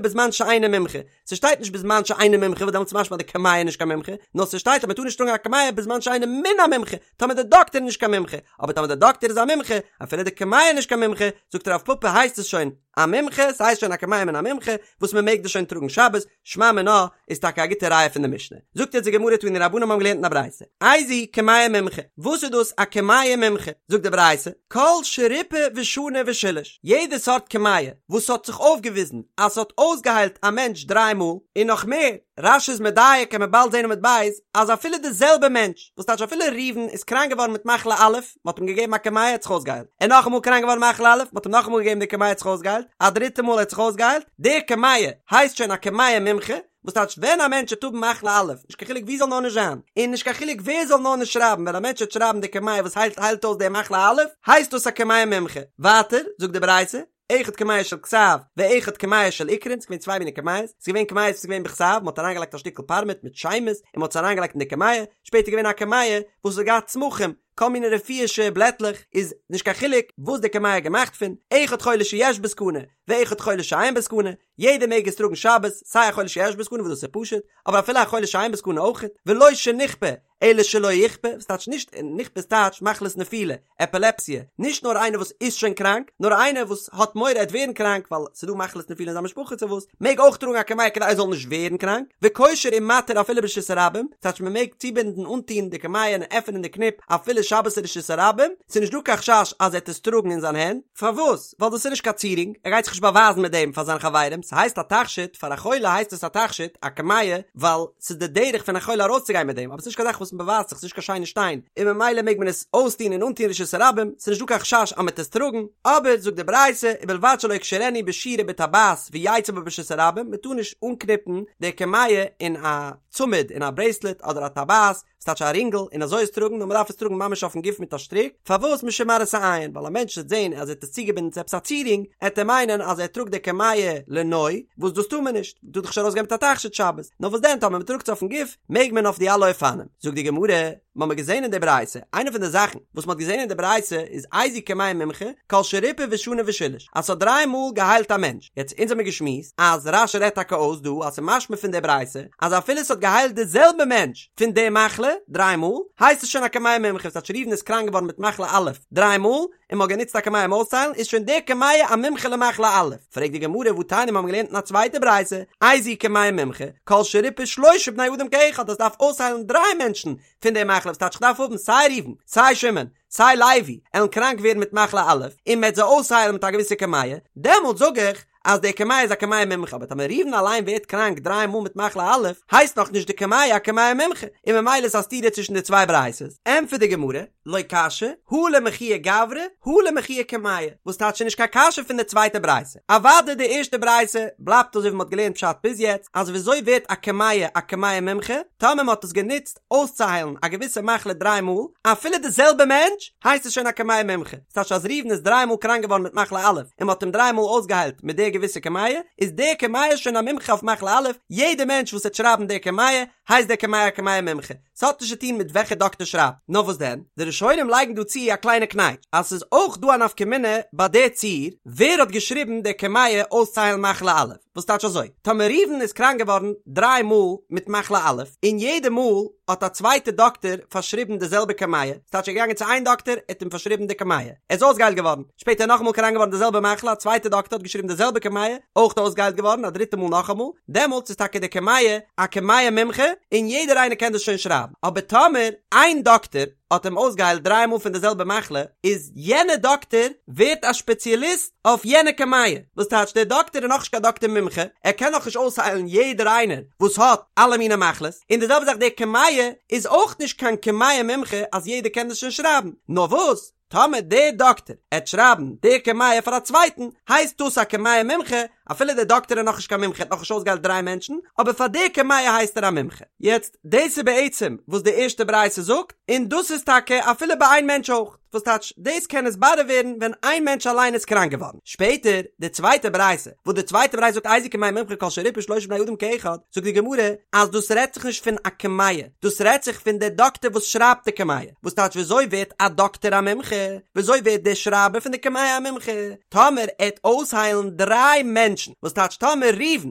Speaker 1: בזמן שאינו מומחה, ס'שטייט נישט בזמן שאינו מומחה וואס דעמאלטס איז משמע אז די קמיע איז נישט קיין מומחה, נאר ס'שטייט אז מ'טאר נישט טראגן א קמיע בזמן שאינו מן המומחה, טאמער די דאקטער איז נישט קיין מומחה, אבער טאמער די דאקטער איז א מומחה, אפילו די קמיע איז נישט קיין מומחה, זאגט רב פפא הייסט עס שוין א מומחה, ס'הייסט שוין א קמיע מן המומחה, וואס מ'מעג דאס שוין טראגן שבת, שמע מינה איז טאקע א גוטע ראיה פון די משנה. זאגט יעצט די גמרא תנו רבנן האבן געלערנט אין א ברייתא, איזוהי קמיע מומחה, וואס איז דאס א קמיע מומחה? זאגט די ברייתא, כל שריפא ושנה ושילש, יעדע סארט קמיע וואס האט זיך אויפגעוויזן אז ס'האט אויסגעהיילט א מענטש דריי מאל, און נאך מער, רש"י איז מדייק קען מען באלד זען עמוד ב', אז אפילו די זעלבע מענטש, וואס טייטש אפילו ראובן איז קראנק געווארן מיט מחלה א', מ'האט אים געגעבן א קמיע האט זיך אויסגעהיילט, ער נאכאמאל קראנק געווארן מחלה א', מ'האט אים נאכאמאל געגעבן די קמיע האט זיך אויסגעהיילט, א דריטע מאל האט זיך אויסגעהיילט, די קמיע הייסט שוין א קמיע מומחה, וואס טייטש ווען א מענטש וועט האבן מחלה א', נישט קיין חילוק ווי זאל נאר נישט זיין, און נישט קיין חילוק ווער זאל נאר נישט שרייבן, ווען א מענטש וועט שרייבן די קמיע וואס היילט היילט אויס די מחלה א', הייסט דאס א קמיע מומחה. ווייטער, זאגט די ברייתא, אחד קמיע של כתב, ואחד קמיע של עיקרין, ס'איז געווען צוויי מיני קמיעות, ס'איז געווען קמיעות וואס איז געווען בכתב, מ'האט אריינגעלייגט א שטיקל פארמעט מיט שמות, און מ'האט עס אריינגעלייגט אין די קמיע, שפעטער איז געווען א קמיע וואס האט געהאט צמחים, כל מיני רפואישע בלעטלעך, איז נישט קיין חילוק וואס די קמיע איז געמאכט פון, אחד חולה שיש בו סכנה, ואחד חולה שאין בו סכנה, יעדער מעג עס טראגן שבת, סיי א חולה שיש בו סכנה וואס דאס איז פשוט, אבער אפילו א חולה שאין בו סכנה אויכעט, ולא שנכפה, אלא שלא יכפה, וואס טייטש נישט, נכפה איז טייטש מחלת נפילה, עפילעפסיע, נישט נאר איינער וואס איז שוין קראנק, נאר איינער וואס האט מורא ער וועט ווערן קראנק ווייל ס'איז דא מחלת נפילה אין זיין משפחה צו וואס, מעג אויך טראגן א קמיע כדי ער זאל נישט ווערן קראנק, וקושר ומתיר אפילו ברשות הרבים, טייטש מען מעג צובינדן אנטון די קמיע און עפענען די קניפ אפילו שבת אין רשות הרבים, ס'איז נישט דא קיין חשש אז ער וועט עס טראגן אין זיין הענט, פארוואס? ווייל דאס איז נישט קיין צירונג, ער גייט זיך נישט באווייזן מיט דעם פאר זיינע חברים, ס'הייסט א תכשיט, פאר א חולה הייסט עס א תכשיט, א קמיע, ווייל ס'איז די דרך פון א חולה ארויסצוגיין מיט דעם, אבער ס'איז נישט קיין זאך וואס מ'באווייזט זיך, ס'איז נישט קיין שיינע שטיין, און ממילא מעג מען עס אויסטון און אנטון רשות הרבים, ס'איז נישט דא קיין חשש אז מ'וועט עס טראגן, אבער זאגט די ברייתא, ובלבד שלא יקשרנו בשיר ובטבעת ויצא בה ברשות הרבים, מ'טאר נישט אנקניפן די קמיע אין א צמיד, אין א ברעיסלעט אדער א טבעת, ס'טייטש א רינגל, און אזוי עס טראגן, נאר מ'דארף עס טראגן ממש אויפן גוף מיט א שטריק, פארוואס משום מראית העין, ווייל א מענטש וועט זען אז ער האט עס צוגעבינדן צו עפעס א צירונג, עט ער מיינען אז ער טראגט די קמיע לנוי, וואס דאס טאר מען נישט, מ'טאר דאך נישט ארויסגיין מיט א תכשיט שבת, נאר וואס דען טאמער מ'טראגט עס אויפן גוף, מעג מען אויף די אלע אופנים. זאגט די גמרא, מ'האמיר געזען אין די ברייתא, איינע פון די זאכן וואס מ'האט געזען אין די ברייתא איז איזו קמיע מומחה, כל שריפא ושנה ושילש, אז ס'האט דריי מאל געהיילט א מענטש, יעצט אונז האמיר געשמועסט אז רש"י רעדט טאקע אויס דא אז ס'משמע פון די ברייתא אז אפילו ס'האט געהיילט די זעלבע מענטש פון די מחלה דריי מאל, הייסט עס שוין א קמיע מומחה, ס'טייטש ראובן איז קראנק געווארן מיט מחלה א' דריי מאל, און מ'האט גענוצט א קמיע אים אויסצוהיילן, איז שוין די קמיע א מומחה למחלה א'. פרעגט די גמרא והתניא מ'האמיר געלערנט אין א צווייטע ברייתא, איזו קמיע מומחה, כל שריפא שלשה בני אדם כאחד אז ס'דארף אויסהיילן דריי מענטשן פון די מחלה, וואס טייטש כ'דארף האבן סיי ראובן, סיי שמעון, סיי לוי, עלן קראנק ווערן מיט מחלה א', און מ'עט זיי אויסהיילן מיט א געוויסע קמיע, דעמאלט זאג איך אז די קמיע איז א קמיע מומחה, אבער טאמער ראובן אליין ווערט קראנק דריי מאל מיט מחלה א', הייסט נאך נישט די קמיע א קמיע מומחה, און ממילא איז א סתירה צווישן די צוויי ברייתות. ענטפערט די גמרא, לא קשיא, הא למחויי גברא, הא למחויי קמיע, וואס טייטש נישט קיין קשיא פון די צווייטע ברייתא. אוודאי די ערשטע ברייתא בלייבט אזוי ווי מ'האט געלערנט פשט ביז יעצט, אז וויאזוי ווערט א קמיע א קמיע מומחה, טאמער מ'האט עס גענוצט אויסצוהיילן א געוויסע מחלה דריי מאל, אפילו די זעלבע מענטש, הייסט עס שוין א קמיע מומחה. ס'טייטש אז ראובן איז דריי מאל קראנק געווארן מיט מחלה א', און מ'האט אים דריי מאל אויסגעהיילט מיט די געוויסע קמיע, איז די קמיע שוין א מומחה אויף מחלה א', יעדע מענטש וואס וועט שרייבן די קמיע, הייסט די קמיע א קמיע מומחה. ס'האט נישט צו טון מיט וועלכע דאקטער שרייבט. נאר וואס דען? די ראשונים לייגן דא צו א קליינע קנייטש, אז ס'איז אויך דא א נפקא מינה ביי די ציור, ווער האט געשריבן די קמיע אויסצוהיילן מחלה א'. וואס טייטש אזוי? טאמער ראובן איז קראנק געווארן דריי מאל מיט מחלה א', און יעדע מאל האט א צווייטע דאקטער פארשריבן די זעלבע קמיע, ס'טייטש ער איז געגאנגען צו איין דאקטער, ער האט אים פארשריבן די קמיע, ער איז אויסגעהיילט געווארן, שפעטער נאכאמאל קראנק געווארן די זעלבע מחלה, א צווייטע דאקטער האט געשריבן די זעלבע קמיע, אויך אויסגעהיילט געווארן, א דריטע מאל נאכאמאל, דעמאלטס איז טאקע די קמיע א קמיע מומחה, און יעדער איינער קען דאס שוין שרייבן, אבער טאמער איין דאקטער האט אים אויסגעהיילט דריי מאל פון די זעלבע מחלה, איז יענע דאקטער ווערט א שפעציאליסט אויף יענע קמיע, וואס טייטש דער דאקטער איז נאכנישט קיין דאקטער מומחה, ער קען נאכנישט אויסהיילן יעדער איינער וואס האט אלע מיני מחלות, און די זעלבע זאך די קמיע איז אויך נישט קיין קמיע מומחה אז יעדער קען דאס שוין שרייבן, נאר וואס טאמער דער דאקטער עט שרייבן די קמיע פאר א צווייטן, הייסט דאס א קמיע מומחה, אפילו דער דאקטער איז נאכנישט קיין מומחה, האט נאכנישט אויסגעהיילט דריי מענטשן, אבער פאר די קמיע הייסט ער א מומחה. יעצט, דאס איז בעצם וואס די ערשטע ברייתא זאגט, און דאס איז טאקע אפילו ביי איין מענטש אויך, וואס טייטש, דאס קען נתברר ווערן ווען איין מענטש אליין איז קראנק געווארן. שפעטער, די צווייטע ברייתא, וואס די צווייטע ברייתא זאגט איזו קמיע מומחה כל שריפא שלשה בני אדם כאחד, זאגט די גמרא אז דאס רעדט זיך נישט פון א קמיע, דאס רעדט זיך פון דער דאקטער וואס שרייבט די קמיע. וואס טייטש וויאזוי ווערט א דאקטער א מומחה? וויאזוי ווערט דער שרייבער פון די קמיע א מומחה? טאמער ער עט אויסהיילן דריי מענטשן, וואס טייטש טאמער ראובן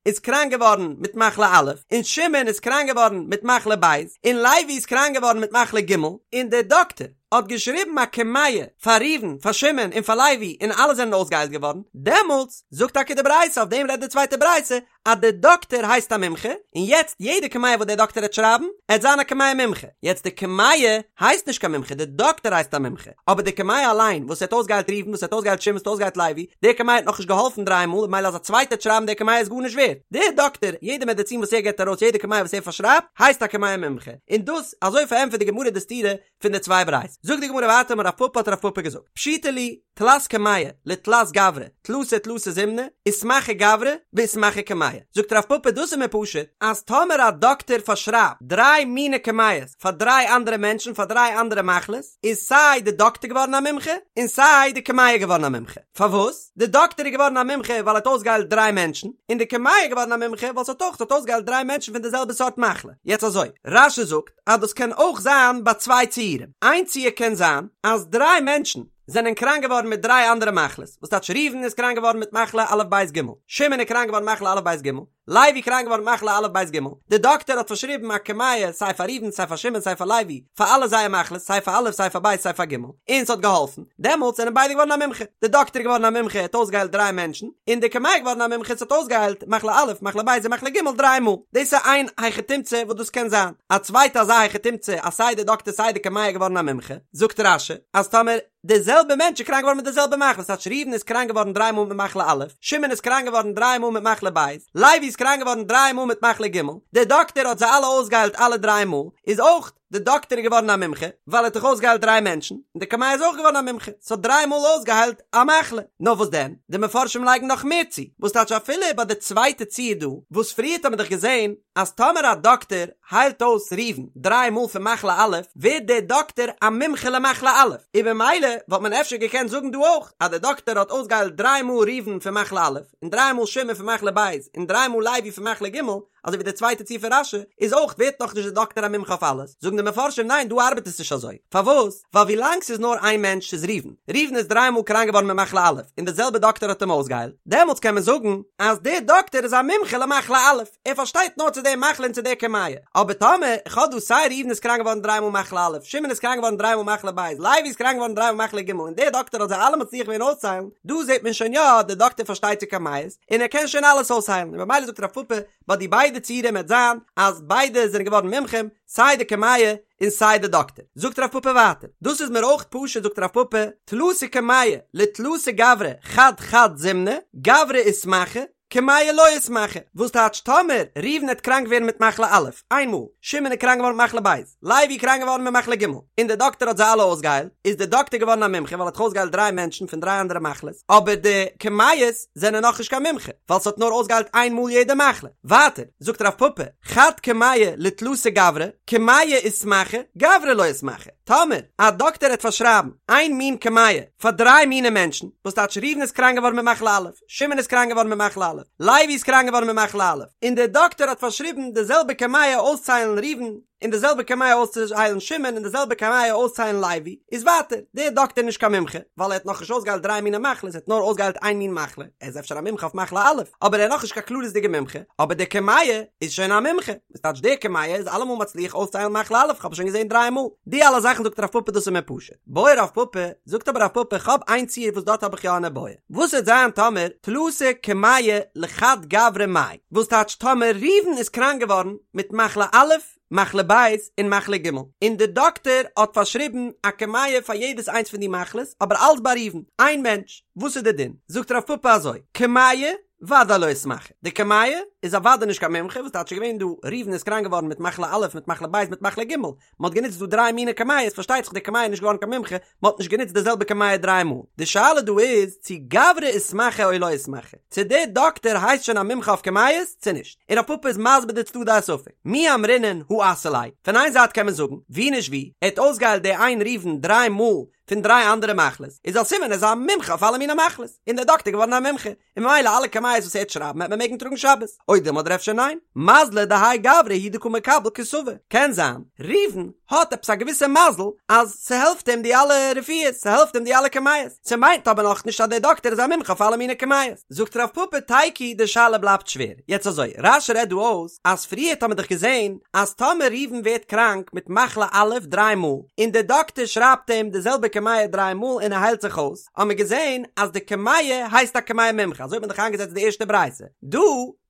Speaker 1: איז קראנק געווארן מיט מחלה א', און שמעון איז קראנק געווארן מיט מחלה ב', און לוי איז קראנק געווארן מיט מחלה ג', און דער דאקטער האט געשריבן א קמיע פאר ראובן, פאר שמעון און פאר לוי און אלע זענען אויסגעהיילט געווארן, דעמאלטס זאגט טאקע די ברייתא, אויף דעם רעדט די צווייטע ברייתא, אז דער דאקטער הייסט א מומחה, און יעצט יעדע קמיע וואס דער דאקטער העט שרייבן, עט זיין א קמיע מומחה. יעצט די קמיע הייסט נישט קיין מומחה, דער דאקטער הייסט א מומחה, אבער די קמיע אליין וואס האט אויסגעהיילט ראובן, וואס האט אויסגעהיילט שמעון, וואס האט אויסגעהיילט לוי, די קמיע האט נאכנישט געהאלפן דריי מאל, ממילא אז א צווייטער העט שרייבן די קמיע איז גארנישט ווערט. דער דאקטער, יעדע מעדעצין וואס ער געבט ארויס, יעדע קמיע וואס ער פארשרייבט, הייסט א קמיע מומחה. און דאס, אזוי פארענטפערט די גמרא די סתירה פון די צוויי ברייתות. זאגט די גמרא ווייטער אמר רב פפא האט רב פפא געזאגט, פשיטא לי, תלת קמיא לתלת גברי, תלתא תלתא זימני, איתמחי גברא ואיתמחי קמיא. זאגט רב פפא דאס איז מיר פשוט, אז טאמער א דאקטער פארשרייבט דריי מיני קמיעות פאר דריי אנדערע מענטשן פאר דריי אנדערע מחלות, איז סיי די דאקטער געווארן א מומחה, און סיי די קמיע געווארן א מומחה. פארוואס? די דאקטער איז געווארן א מומחה ווייל ער האט אויסגעהיילט דריי מענטשן, און די קמיע איז געווארן א מומחה ווייל ס'האט אויך ס'האט אויסגעהיילט דריי מענטשן פון די זעלבע סארט מחלה. יעצט אזוי, רש"י זאגט אז דאס קען אויך זיין ביי צוויי ציורים. איין ציור קען זיין אז דריי מענטשן זענען קראנק געווארן מיט דריי אנדערע מחלות, וואס טייטש ראובן איז קראנק געווארן מיט מחלה א' ב' ג', שמעון איז קראנק געווארן מחלה א' ב' ג', לוי קראנק געווארן מחלה א' ב' ג', די דאקטער האט פארשריבן א קמיע סיי פאר ראובן סיי פאר שמעון סיי פאר לוי, פאר אלע זייער מחלות, סיי פאר א' סיי פאר ב' סיי פאר ג', און ס'האט געהאלפן, דעמאלטס זענען ביידע געווארן א מומחה, די דאקטער איז געווארן א מומחה ער האט אויסגעהיילט דריי מענטשן, און די קמיע איז געווארן א מומחה ס'האט אויסגעהיילט מחלה א' מחלה ב' און מחלה ג' דריי מאל, דאס איז איין היכי תמצא וואס דאס קען זיין, א צווייטע אזא היכי תמצא אז סיי די דאקטער סיי די קמיע איז געווארן א מומחה, זאגט רש"י אז טאמער. די זעלבע מענטש איז קראנק געווארן מיט די זעלבע מחלה, ס'טייטש ראובן איז קראנק געווארן דריי מאל מיט מחלה א', שמעון איז קראנק געווארן דריי מאל מיט מחלה ב', לוי איז קראנק געווארן דריי מאל מיט מחלה ג', דער דאקטער האט זיי אלע אויסגעהיילט אלע דריי מאל, איז אויך די דאקטער איז געווארן א מומחה, ווייל ער האט דאך אויסגעהיילט דריי מענטשן, און די קמיע איז אויך געווארן א מומחה, ס'האט דריי מאל אויסגעהיילט א מחלה. נאר וואס דען, די מפרשים לייגן נאך מער צו, וואס טייטש אפילו ביי די צווייטע ציור דא, וואס פריערט האט מען דאך געזען אז טאמער א דאקטער היילט אויס ראובן דריי מאל פון מחלה א', ווערט דער דאקטער א מומחה למחלה א', און במילא וואלט מען אפשר געקענט זאגן דא אויך אז דער דאקטער האט אויסגעהיילט דריי מאל ראובן פון מחלה א', און דריי מאל שמעון פון מחלה ב', און דריי מאל לוי פון מחלה ג', אזוי ווי די צווייטע ציור פון רש"י, איז אויך ווערט נאך נישט די דאקטער א מומחה אויף אלעס, זאגן די מפרשים ניין דא ארבעט עס נישט אזוי, פארוואס? ווייל ווי לאנג ס'איז נאר איין מענטש ס'איז ראובן, ראובן איז דריי מאל קראנק געווארן מיט מחלה א', און די זעלבע דאקטער האט אים אויסגעהיילט, דעמאלטס קען מען זאגן אז דער דאקטער איז א מומחה למחלה א', ער פארשטייט נאר צו די מחלה און צו די קמיע, אבער טאמער איך האב דא סיי ראובן איז קראנק געווארן דריי מאל מחלה א', שמעון איז קראנק געווארן דריי מאל מחלה ב', לוי איז קראנק געווארן דריי מאל מחלה ג', און דער דאקטער האט זיי אלע מצליח געווען אויסצוהיילן, דא זעט מען שוין יא, דער דאקטער פארשטייט צו קמיעות, און ער קען שוין אלעס אויסהיילן, און במילא זאגט רב פפא, ביי די ביידע ציורים וועט זיין אז ביידע זענען געווארן מומחים, סיי די קמיע און סיי די דאקטער. זאגט רב פפא ווייטער, דאס איז מיר אויך פשוט זאגט רב פפא, תלתא קמעי לתלתא גברי חד חד זימנא, גברא איתמחי, קמיע לא איתמחי, וואס טייטש טאמער ראובן העט קראנק ווערן מיט מחלה א', איין מאל, שמעון איז קראנק געווארן מיט מחלה ב', לוי איז קראנק געווארן מיט מחלה ג', און דער דאקטער האט זיי אלע אויסגעהיילט, איז דער דאקטער געווארן א מומחה ווייל ער האט דאך אויסגעהיילט דריי מענטשן פון דריי אנדערע מחלות, אבער די קמיעות זענען נאכנישט קיין מומחה, ווייל ס'האט נאר אויסגעהיילט איין מאל יעדע מחלה. ווייטער, זאגט רב פפא, חד קמיע לתלתא גברי, קמיע איתמחי, גברא לא איתמחי. טאמער א דאקטער העט פארשרייבן איין מין קמיע פאר דריי מיני מענטשן, וואס טייטש ראובן איז קראנק געווארן מיט מחלה א', שמעון איז קראנק געווארן מיט מחלה א', לוי איז קראנק געווארן מיט מחלה א', און דער דאקטער האט פארשריבן די זעלבע קמיע אויסצוהיילן ראובן, און די זעלבע קמיע אויסצוהיילן שמעון און די זעלבע קמיע אויסצוהיילן לוי, איז ווייטער, דער דאקטער נישט קיין מומחה, ווייל ער האט נאכנישט אויסגעהיילט דריי מיני מחלות, ער האט נאר אויסגעהיילט איין מין מחלה, ער איז אפשר א מומחה אויף מחלה א', אבער ער איז נאכנישט קיין כללית'דיגע מומחה, אבער דער קמיע איז שוין א מומחה, וואס טייטש דער קמיע איז אלעמאל מצליח אויסצוהיילן מחלה א', כ'האב עס שוין געזען דריי מאל. די אלע זאכן זאגט רב פפא דאס איז מיר פשוט. בעי רב פפא, זאגט אבער רב פפא כ'האב איין ציור וואס דארט האב איך יא אן איבעיא. וואס וועט זיין טאמער תלתא קמעי לחד גברא מאי? וואס טייטש טאמער ראובן איז קראנק געווארן מיט מחלה א', מחלה ב' און מחלה ג', און די דאקטער האט פארשריבן א קמיע פאר יעדעס איינס פון די מחלות, אבער אלץ ביי ראובן, איין מענטש, וואס איז די דין? זאגט רב פפא אזוי, קמיע ודאי לא איתמחי, די קמיע איז אוודאי נישט קיין מומחה, וואס טייטש ס'איז געווען דא, ראובן איז קראנק געווארן מיט מחלה א', מיט מחלה ב', מיט מחלה ג', מען האט גענוצט דא דריי מיני קמיעות, פארשטייט זיך די קמיע איז נישט געווארן קיין מומחה, מען האט נישט גענוצט די זעלבע קמיע דריי מאל, די שאלה דא איז צו גברא איתמחי או לא איתמחי, צו דער דאקטער הייסט שוין א מומחה אויף קמיעות צו נישט, און רב פפא איז מסביר די צדדי הספק, מי אמרינן הא אסי ליה, פון איין זייט קען מען זאגן, ווי נישט ווי, ער האט אויסגעהיילט די איין ראובן דריי מאל פון דריי אנדערע מחלות, איז א סימן ער איז א מומחה אויף אלע מיני מחלות, און דער דאקטער געווארן א מומחה, און ממילא אלע קמיעות וואס ער וועט שרייבן וועט מען מעגן טראגן שבת, או דילמא אדער אפשר ניין, מזליה דהאי גברא הוא דקא מקבל כתבא, קען זיין ראובן האט עפעס א געוויסע מזל אז ס'העלפט אים די אלע רפואות, ס'העלפט אים די אלע קמיעות, ס'מיינט אבער נאכנישט אז דער דאקטער איז א מומחה אויף אלע מיני קמיעות. זאגט רב פפא תיקו די שאלה בלייבט שווער, יעצט אזוי, רש"י רעדט דא אויס אז פריערט האט מען דאך געזען אז טאמער ראובן ווערט קראנק מיט מחלה א' דריי מאל, און דער דאקטער שרייבט אים די זעלבע קמיע דריי מאל און ער היילט זיך אויס, האט מען געזען אז די קמיע הייסט א קמיע מומחה, אזוי האט מען דאך איינגעזעצט די ערשטע ברייתא. דא,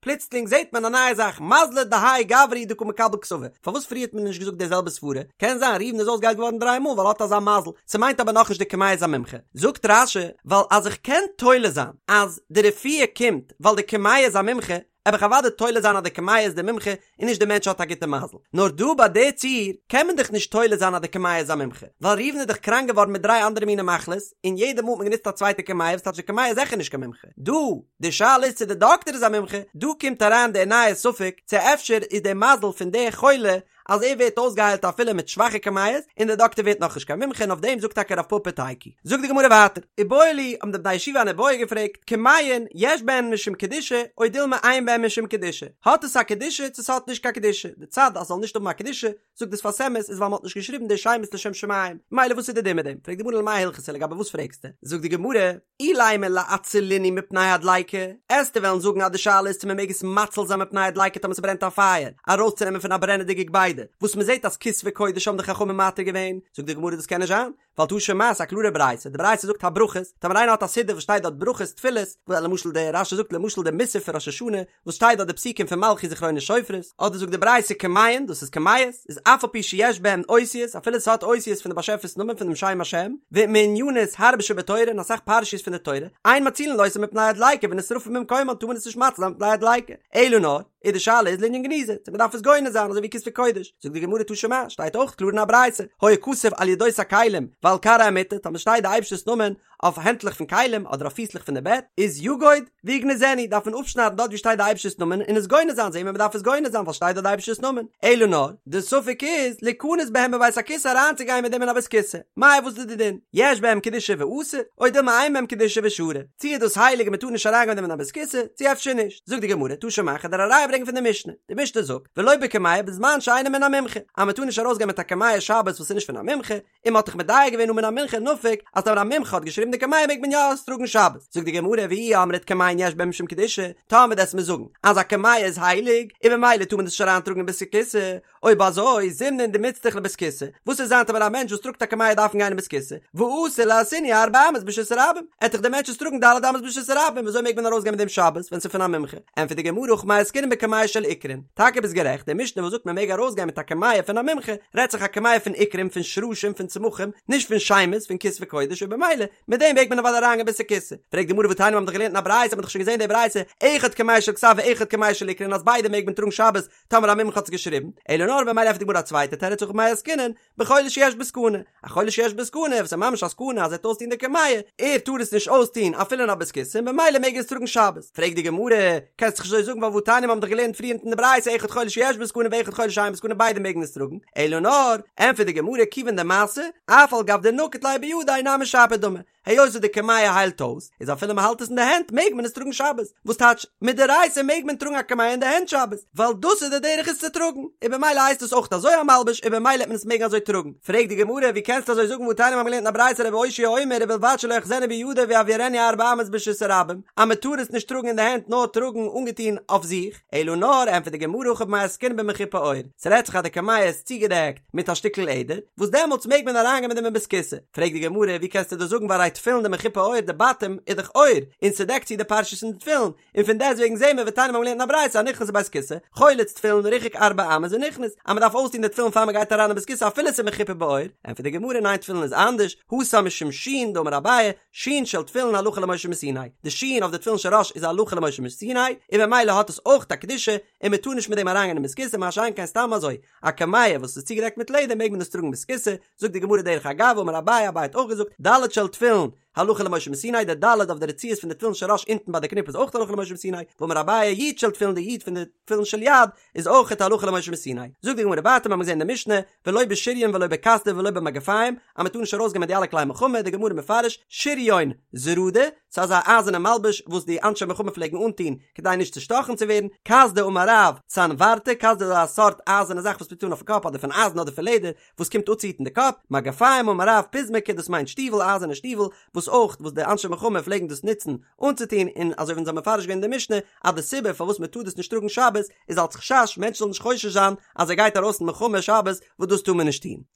Speaker 1: פלוצלינג זעט מען א נייע זאך, מזליה דהאי גברא הוא דקא מקבל כתבא. פארוואס פריער האט מען נישט געזאגט די זעלבע סברה? קען זיין ראובן איז אויסגעהיילט געווארן דריי מאל ווייל ער האט אזא מזל, ס'מיינט אבער נאכנישט די קמיע איז א מומחה. זאגט רש"י, ווייל אז איך קען תולה זיין אז די רפואה קומט ווייל די קמיע איז א מומחה, וועל איך אוודאי תולה זיין אז די קמיע איז די מומחה און נישט די מענטש האט א גוטע מזל. נאר דא ביי די ציור קען מען דאך נישט תולה זיין אז די קמיע איז א מומחה, ווייל ראובן איז דאך קראנק געווארן מיט דריי אנדערע מיני מחלות, און יעדע מאל האט מען גענוצט א צווייטע קמיע וואס טייטש די קמיע איז זיכער נישט קיין מומחה. דא, די שאלה איז צו די דאקטער איז א מומחה, דא קומט אריין די נייע ספק צו אפשר איז די מזל פון די חולה אז ער ווערט אויסגעהיילט אפילו מיט שוואכע קמיעות, און דער דאקטער ווערט נאכנישט קיין מומחה און אויף דעם זאגט טאקע רב פפא תיקו. זאגט די גמרא ווייטער, איבעיא להו, האבן די בני ישיבה אן איבעיא געפרעגט, קמיעין יש בהן משום קדושה או דילמא אין בהן משום קדושה, האט עס א קדושה צו ס'האט נישט קיין קדושה, די צד אז ס'זאל נישט האבן א קדושה, זאגט די שפת אמת, איז ווייל מ'האט נישט געשריבן די שמות לשם שמים, ממילא וואס איז די דין מיט דעם? פרעגט די גמרא למאי הלכתא לגבי וואס פרעגסטו? זאגט די גמרא, אילימא לאצולינהו מפני הדליקה, עסטו וועלן זאגן אז די שאלה איז צו מען מעג עס מציל זיין מפני הדליקה טאמער ס'ברענט א פייער, ארויסצונעמען פון א ברענעדיגע געביידע, וואס מען זעט אז כתבי קודש האבן די חכמים מתיר געווען, זאגט די גמרא דאס קען נישט זיין, ווייל תא שמע ס'איז א קלארע ברייתא, די ברייתא זאגט הברכות, טאמער איינער האט א סידור וואס שטייט דארט ברכות תפילות, ווי למשל די רש"י זאגט למשל די מוסף פון ראש השנה, וואס שטייט דארט די פסוקים פון מלכיות זכרונות שופרות, אדער זאגט די ברייתא קמיעין, דאס איז קמיעות, איז אף על פי שיש בהן אותיות, אפילו ס'האט אותיות פון די באשעפער'ס נאמען פון דעם שם השם, ומענינות הרבה שבתורה און אסאך פרשיות פון די תורה, אין מצילין אותן מפני הדליקה ונשרפין במקומן טאר מען עס נישט מציל זיין מפני הדליקה, אלא נאר. איז די שאלה איז לענין גניזה, צו מ'דארף עס גונז זיין אזוי ווי כתבי קודש, זאגט די גמרא תא שמע, שטייט אויך קלאר אין א ברייתא, היה כתוב על ידות הכלים ועל כרעי המיטה, טאמער שטייט די אייבערשטער'ס נאמען אויף הענטלעך פון כלים אדער אויף פיסלעך פון די בעט, איז יגוד ויגנזנו, דארף מען אפשניידן דארט ווי שטייט די אייבערשטער'ס נאמען און עס גונז זיין, זעהן מיר מ'דארף עס גונז זיין ווייל שטייט דארט די אייבערשטער'ס נאמען, אלא נאר, די ספק איז, ליכנס בהם בבית הכסא אריינצוגיין מיט דעם אין א בית כסא, מאי וואס איז די דין, יש בהם קדושה ואסור, או דילמא אין בהם קדושה ושרי, צו איז דאס הייליג און מ'טאר נישט אריינגיין מיט דעם אין א בית כסא, צו אפשר נישט, זאגט די גמרא, תא שמע, כ'וועל דיר א ראיה ברענגען פון די משנה, די משנה זאגט, ולא בקמיע בזמן שאינו מן המומחה, אז מ'טאר נישט ארויסגיין מיט א קמיע שבת וואס איז נישט פון א מומחה, און מ'האט דאך מדייק געווען הא מן המומחה נפיק אז טאמער א מומחה האט געשריבן די קמיע מעג מען יא עס טראגן שבת, זאגט די גמרא ואי אמרת קמיעין יש בהם משום קדושה, טאמער דו'סט מיר זאגן אז א קמיע איז הייליג און במילא טאר מען דאס נישט אריין טראגן אין בית הכסא, אויב אזוי זימנין דמיצטריך לבית כסא, וואס וועט זיין טאמער א מענטש וואס טראגט א קמיע דארפן גיין אין בית כסא, ואתי לאתויינהו ארבע אמות ברשות הרבים, עט דאך דער מענטש עס טראגן ד' אמות ברשות הרבים, וויאזוי מעג מען ארויסגיין מיט דעם שבת ווען ס'איז פון א מומחה? ענטפערט די גמרא הכא במאי עסקינן בקמיע של עיקרין, טאקע ביסט גערעכט, די משנה וואס זאגט מען מעג ארויסגיין מיט א קמיע פון א מומחה, רעדט זיך א קמיע פון עיקרים, פון שרשים, פון צמחים, נישט פון שמות, פון כתבי קודש, און במילא, מיט דעם מעג מען אוודאי אריינגיין בית הכסא. פרעגט די גמרא והתניא מיר האבן דאך געלערנט אין א ברייתא, האט מען דאך שוין געזען די ברייתא, אחד קמיע של כתב ואחד קמיע של עיקרין אז ביידע מעג מען טראגן שבת, טאמער א מומחה האט עס געשריבן, אלא נאר במילא ענטפערט די גמרא א צווייטע תירוץ הכא במאי עסקינן, בחולה שיש בו סכנה, א חולה שיש בו סכנה וואס איז ממש א סכנה אז ער וועט אויסטון די קמיע, ער טאר עס נישט אויסטון אפילו אין א בית כסא און במילא מעג ער עס טראגן שבת. פרעגט די גמרא, קענסט דאך נישט אזוי זאגן ווייל והתניא מיר האבן דאך געלערנט פריער אין די ברייתא אחד חולה שיש בו סכנה ואחד חולה שאין בו סכנה ביידע מעגן עס טראגן, אלא נאר, ענטפערט די גמרא כיוון דמסו, אף על גב דנקיט ליה בידיה נמי שפיר דמי, היות וואס די קמיע היילט אויס, איז אפילו מען האלט עס אין די הענט מעג מען עס טראגן שבת, וואס טייטש מדאורייתא מעג מען טראגן א קמיע אין די הענט שבת, ווייל דאס איז די דרך עס צו טראגן, און במילא הייסט עס אויך אזוי א מלבוש און במילא וועט מען עס מעגן אזוי טראגן, פרעגט די גמרא ווי קענסטו אזוי זאגן והתניא מיר האבן געלערנט אין א ברייתא רבי אושעיא אומר ובלבד שלא יאחזנו בידו ויעבירנו ארבע אמות ברשות הרבים, אז מען טאר עס נישט טראגן אין די הענט נאר טראגן אנגעטון אויף זיך, אלא נאר, ענטפערט די גמרא הכא במאי עסקינן במחופה עור, ס'רעדט זיך אז די קמיע איז צוגעדעקט מיט א שטיקל לעדער, וואס דעמאלטס מעג מען אריינגיין מיט דעם אין בית כסא. פרעגט די גמרא, ווי קענסטו דאס זאגן והרי תפילין דמחופה עור, די בתים איז דאך עור, און ס'דעקט צו די פרשיות אין די תפילין, און פון דעסטוועגן זעהן מיר ותניא מיר האבן געלערנט אין א ברייתא הנכנס לבית כסא, חולץ תפילין ריחק ארבע אמות ונכנס, אז מ'דארף אויסטון די תפילין פאר מ'גייט אריין אין בית כסא אפילו ס'איז מחופה בעור, ענטפערט די גמרא ניין תפילין איז אנדערש, התם משום שין דאמר אביי, שין של תפילין הלכה למשה מסיני, די שין אויף די תפילין של ראש איז הלכה למשה מסיני, און במילא האט עס אויך א קדושה, און מען טאר נישט מיט דעם אריינגיין אין בית כסא, מה שאין כן סתם אזוי, א קמיע וואס איז צוגעדעקט מיט לעדער מעג מען עס טראגן בית כסא, זאגט די גמרא דרך אגב אמר אביי, אביי האט אויך געזאגט, ד' של תפילין, הלכה למשה מסיני, די ד' אויף די רצועות פון די תפילין של ראש אונטן ביי די קניפ איז אויך הלכה למשה מסיני, ואמר אביי י' של תפילין די י' פון די תפילין של יד איז אויך הלכה למשה מסיני. זאגט די גמרא ווייטער מיר האבן געזען אין די משנה, ולא בשריון ולא בקסדה ולא במגפיים, אז מען טאר נישט ארויסגיין מיט די אלע כלי מלחמה, די גמרא מפרש, שריון זרדה, ס'איז אזא אייזערנע מלבוש וואס די אנשי מלחמה פלעגן אנטון כדי נישט צושטאכן צו ווערן, קסדה אמר רב, סנברתא, קסדה איז א סארט אייזערנע זאך וואס מ'טוט אן אויפן קאפ אדער פון אייזן אדער פון לעדער, וואס קומט אפצוהיטן די קאפ, מגפיים אמר רב, פזמקי, דאס מיינט שטיוול, אייזערנע שטיוול, וואס אויך וואס די אנשי מלחמה פלעגן דאס נוצן אנצוטון, און אזוי ווי אונז האבן מפרש געווען אין די משנה, אז די סיבה פארוואס מען טאר דאס נישט טראגן שבת איז אלס חשש מענטשן זאלן נישט חושש זיין אז ער גייט ארויס אין מלחמה שבת וואס דאס טאר מען נישט טון.